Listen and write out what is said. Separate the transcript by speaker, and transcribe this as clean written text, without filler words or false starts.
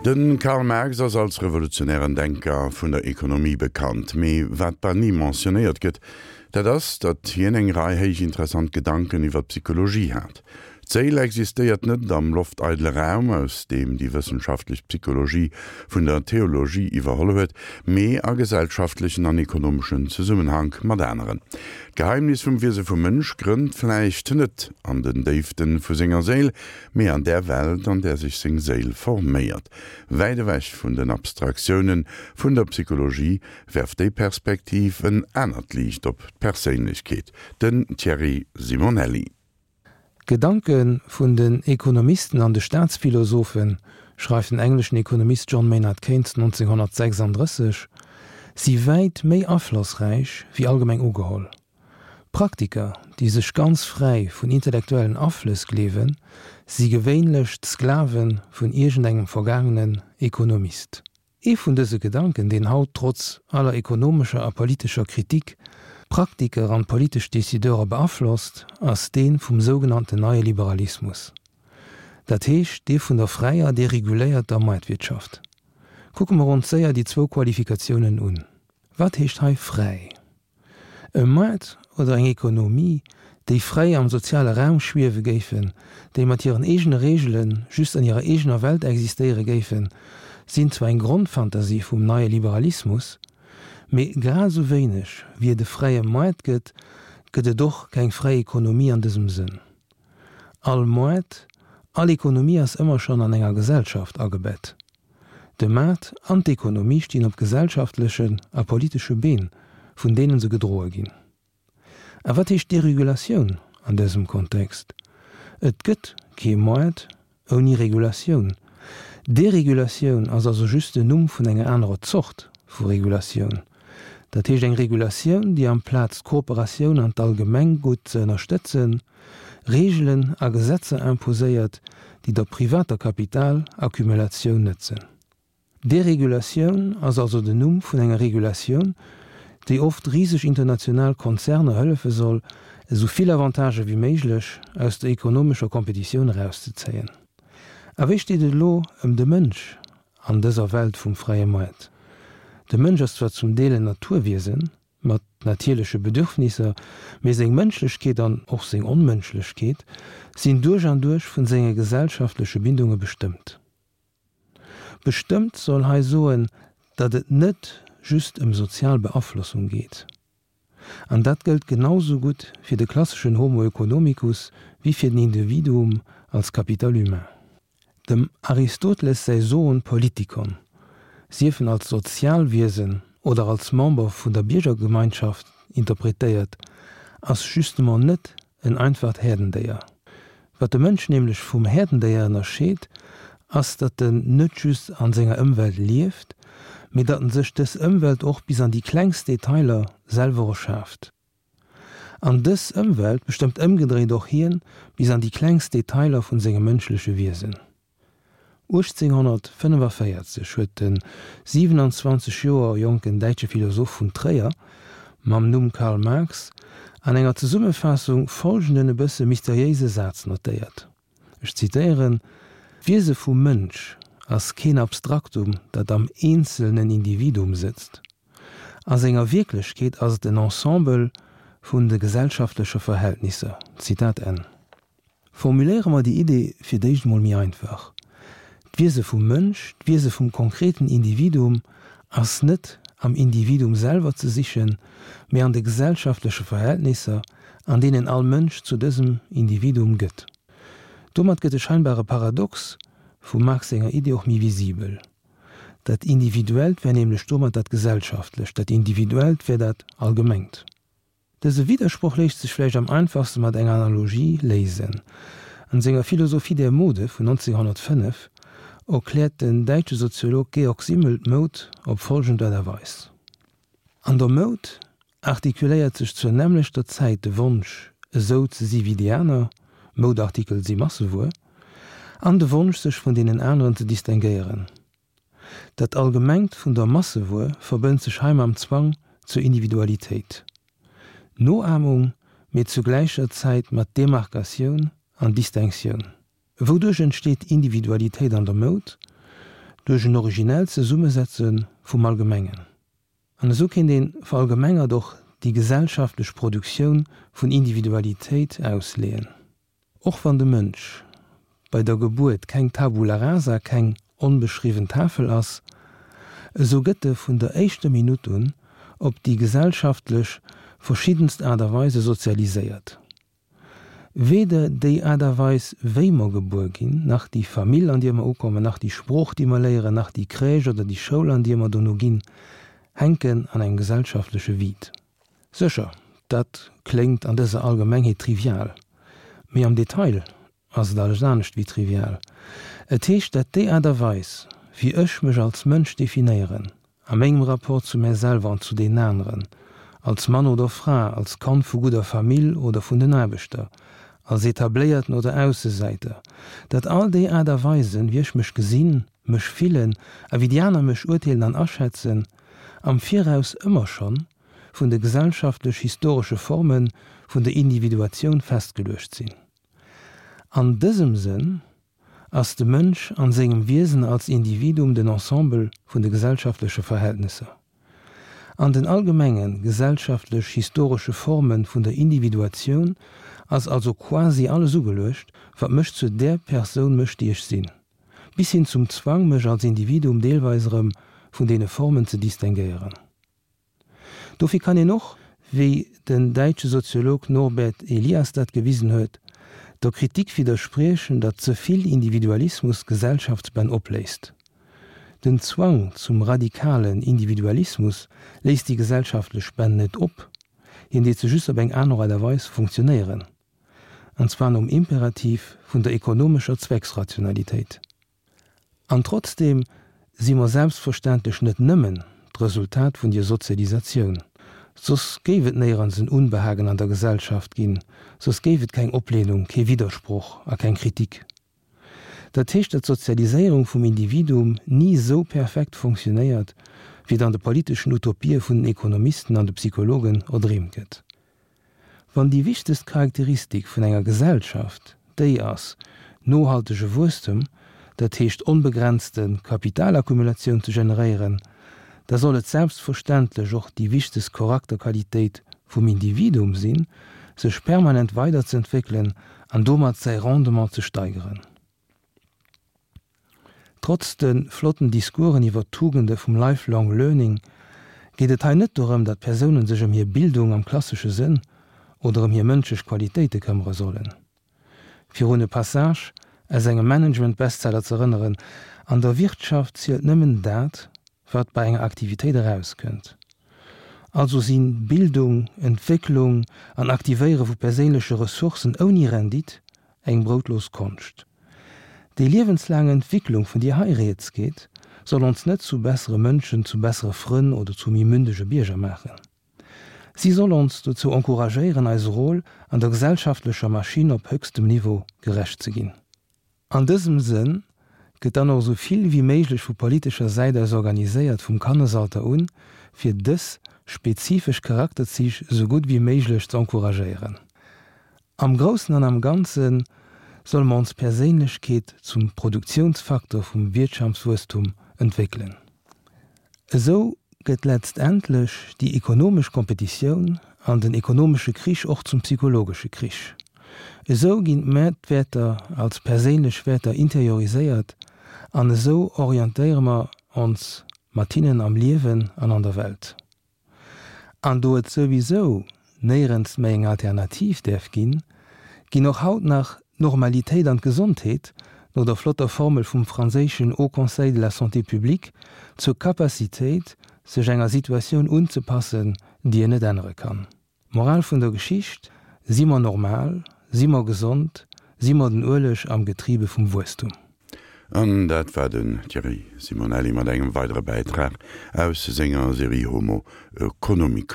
Speaker 1: De Karl Marx ass als revolutionären Denker vun der Ekonomie bekannt. Mee wat bal ni mentionnéiert gëtt, dat ass, datt hien eng Rei héich interessant Gedanken iwwer d'Psychologie hat. D'Séil existéiert net am lofteidele Raum, aus deem déi wëssenschaftlech Psychologie vun der Theologie iwwerholl huet, mee a gesellschaftlechen an ekonomeschen Zesummenhank mat aneren. D'Geheimnis vum Wiese vum Mënsch grënnt vläicht net an den Déiften vu senger Séil, mee an där Welt, an där sech seng Séil forméiert. Wäit ewech vun den Abstraktioune vun der Psychologie werft déi Perspektiv en anert Liicht op d'Perséinlechkeet. Den Thierry Simonelli.
Speaker 2: D'Gedanke vun den Ekonomisten an de Staatsphilosophen, schreift den engleschen Ekonomist John Maynard Keynes 1936, si wäit méi aflossräich wéi allgemeng ugeholl. Praktiker, déi sech ganz fräi vun intellektuellen Aflëss gleewen, si gewéinlech d'Sklave vun iergendengem vergaangenen Ekonomist. Ee vun dëse Gedanken, deen haut trotz aller ekonomescher a politescher Kritik d'Praktiker an d'politesch Decideurer beaflosst, ass dee vum sougenannten neie Liberalismus, dat heescht dee vun der fräier, dereguléierter Moartwirtschaft. Kucke mer ons séier déi zwou Qualifikatiounen un. Wat heescht hei fräi? E Moart oder eng Ekonomie, déi fräi am soziale Raum schwiewe géifen, déi mat hiren eegene Reegele just an hirer eegener Welt existéiere géifen, sinn zwar eng Grondfantasie vum neie Liberalismus, mee grad esou wéineg wéi et e fräie Moart gëtt, gëtt et och keng fräi Ekonomie an dësem Sënn. All Moart, all Ekonomie ass ëmmer schonn an enger Gesellschaft agebett. De Maart an d'Ekonomie stinn op gesellschaftlechen a politesche Been, vun deenen se gedroe ginn. A wat heescht Deregulatioun an dësem Kontext? Et gëtt kee Moart ouni Regulatioun. Deregulatioun ass also just den Numm vun enger anerer Zort vu Regulatioun. Dat heescht eng Regulatioun, déi amplaz d'Kooperatioun an d'Allgemenggutt ze ënnerstëtzen, Reegelen a Gesetzer imposéiert, déi der privater Kapitalaccumulatioun nëtzen. Deregulatioun ass also den Numm vun enger Regulatioun, déi oft riseg international Konzerner hëllefe soll, esou vill Avantagë wéi méiglech aus der ekonomescher Kompetitioun erauszezéien. A wéi steet et elo ëm de Mënsch an dëser Welt vum fräie Moart? De Mënsch ass zwar zum Deel en Naturwiesen, mat natierleche Bedürfnisser, mee seng Mënschlechkeet an och seng Onmënschlechkeet sinn duerch an duerch vun senge gesellschaftleche Bindunge bestëmmt. Bestëmmt soll hei soen, datt et net just ëm sozial Beaflossung geet. An dat gëllt genau sou gutt fir de klasseschen Homo economicus wéi fir den Individuum als Capital humain. Dem Aristoteles säi Zoon politikon, sief en als Sozialwiesen oder als Member vun der Biergergemeinschaft interpretéiert, ass justement net en einfacht Häerdendéier. Wat de Mënsch nämlech vum Häerdendéier ënnerscheet, ass datt en net just an senger Ëmwelt lieft, mee datt en sech dës Ëmwelt och bis an déi klengst Detailer selwer erschaaft. An dës Ëmwelt bestëmmt ëmgedréit och hien bis an déi klengst Detailer vun sengem mënschleche Wiesen. 1845 huet de 27 Joer jonken däitsche Philosoph vun Tréier mam Numm Karl Marx an enger Zesummefaassung folgenden e bësse mysteriéise Saz notéiert, ech zitéieren, D'Wiese vum Mënsch ass keen Abstraktum, dat am eenzelnen Individuum sëtzt. A senger Wierklechkeet ass et en Ensemble vun de gesellschaftleche Verhältnisser. Zitat Enn. Formuléiere mer déi Idee fir d'éischt emol méi einfach, D'Wiese vum Mënsch, d'Wiese vum konkreten Individuum ass net am Individuum selwer ze sichen, mee an de gesellschaftleche Verhältnisser, an deenen all Mënsch zu dësem Individuum gëtt. Domat gëtt de scheinbare Paradox vum Marx senger Idee och méi visibel. Dat Individuellt wär nämlech domat dat Gesellschaftlecht, dat Individuellt wär dat Allgemengt. Dëse Widdersproch léisst sech vläicht am einfachste mat enger Analogie léisen. An senger Philosophie der Mode vun 1905 erkläert den däitsche Soziolog Georg Simmel d'Moud op folgend Aart a Weis, An der Moud artikuléiert sech zur nämmlechter Zäit de Wonsch, esou ze si wéi déi aner, Moudartikel si Massewuer, an de Wonsch, sech vun deenen aneren ze distinguéieren. Dat Allgemengt vun der Massewuer verbënnt sech hei mam Zwang zur Individualitéit. Noahmung, mee zu gläicher Zäit mat Demarkatioun an Distinctioun. Wouduerch entsteet Individualitéit an der Moud? duerch en originellt Zesummesetze vum Allgemengen. An esou kéint ee verallgemengert och déi gesellschaftlech Produktioun vun Individualitéit ausleeën. Och wann de Mënsch bei der Gebuert keng Tabula rasa, keng onbeschriwwen Tafel ass, esou gëtt e vun der éischter Minutt un op déi gesellschaftlech verschiddenst Aart a Weise sozialiséiert. Weder déi Aart a Weis, wéi mer gebuer ginn, nach déi Famill, an dier mer ukommen, nach déi Sprooch, déi mer léieren, nach déi Crèche oder déi Schoul, an dier mer dono ginn, hänken an engem gesellschaftleche Vide. Sécher, dat kléngt an dëser Allgemengheet trivial, mee am Detail ass et alles anescht wéi trivial. Et heescht, dat déi Aart a Weis, wéi ech mech als Mënsch definéieren, a mengem Rapport zu mär selwer an zu deenen aneren, als Mann oder Fra, als Kand vu gudder Famill oder vun den Aarbechter, als Etabléierten oder Aussesäiter, dat all déi Aart a Weisen, wéi ech mech gesinn, mech fillen a wéi déi aner mech urteelen an aschätzen, am Viraus ëmmer schonn vun de gesellschaftlech-historesche Forme vun der Individuatioun festgeluecht sinn. An dësem Sënn ass de Mënsch an sengem Wiesen als Individuum den Ensemble vun de gesellschaftleche Verhältnesser. An den allgemenge gesellschaftlech-historesche Forme vun der Individuatioun ass also quasi alles ugeluecht, wat mech zu där Persoun mécht, déi ech sinn, bis hin zum Zwang, mech als Individuum deelweis erëm vun deene Formen ze distinguéieren. Dofir kann een och, wéi den däitsche Soziolog Norbert Elias dat gewisen huet, der Kritik widderspriechen, datt ze vill Individualismus Gesellschaftsbänn opléist. Den Zwang zum radikalen Individualismus léist déi gesellschaftlech Bänn net op, hien deet se just op eng aner Aart a Weis funktionéieren, an zwar nom Imperativ vun der ekonomescher Zwecksrationalitéit. An trotzdeem si mer selbstverständlech net nëmmen d'Resultat vun dier Sozialisatioun. Soss géif et néierens en Unbehagen an der Gesellschaft ginn, soss géif et keng Oplehnung, kee Widdersproch a keng Kritik. Dat heescht, datt d'Sozialiséierung vum Individuum ni esou perfekt fonctionnéiert, wéi et an de politeschen Utopië vun den Ekonomisten an de Psychologen erdreemt gëtt. Wann déi wichtegst Charakteristik vun enger Gesellschaft déi ass, nohaltege Wuesstem, dat heescht onbegrenzte Kapitalaccumulatioun ze generéieren, da soll et selbstverständlech och déi wichtegst Chorakterqualitéit vum Individuum sinn, sech permanent weiderzëentwéckelen an domat säi Rendement ze steigeren. Trotz de flotten Discoursen iwwer d'Tugende vum Lifelong Learning geet et hei net dorëm, datt Persounen sech ëm hir Bildung am klassesche Sënn oder ëm hir mënschlech Qualitéite këmmere sollen. Fir un e Passage aus engem Management-Bestseller z'erënneren, An der Wirtschaft zielt nëmmen dat, wat bei enger Aktivitéit erauskënnt. Also si Bildung, Entwécklung an Aktivéiere vu perséinleche Ressourcen ouni Rendite Eng broutlos Konscht. Déi liewenslaang Entwicklung, vun dier hei rieds geet, soll ons net zu bessere Mënschen, zu bessere Frënn oder zu méi mündege Bierger maachen. Si soll ons dozou encouragéieren, eise Rôle an der gesellschaftlecher Maschinn op höchstem Niveau gerecht ze ginn. An dësem Sënn gëtt dann och esou vill wéi méiglech vu politescher Säit aus organiséiert, vum Kannesalter un, fir dës spezifesch Charakterzich esou gutt wéi méiglech ze encouragéieren. Am Groussen an am Ganze solle mer ons Perséinlechkeet zum Produktionsfaktor vum Wiertschaftswuesstum entwéckelen. Esou gëtt letztendlech déi ekonomesch Kompetitioun an den ekonomesche Krich och zum psychologesche Krich. Esou ginn d'Mäertwäerter als perséinlech Wäerter interioriséiert an esou orientéiere mer ons mat hinnen am Liewen an an der Welt. An do et souwisou néierens méi eng Alternativ däerf ginn, ginn och haut nach d'Normalitéit an d'Gesondheet, no der flotter Formel vum franséischen Haut Conseil de la Santé publique, zur Capacitéit, sech enger Situatioun unzepassen, déi een net ännere kann. Moral vun der Geschicht, Si mer normal? Si mer gesond? Si mer den Ueleg am Getriebe vum Wuesstum?
Speaker 1: An dat war den Thierry Simonelli mat engem weidere Bäitrag aus senger Serie Homo Economicus.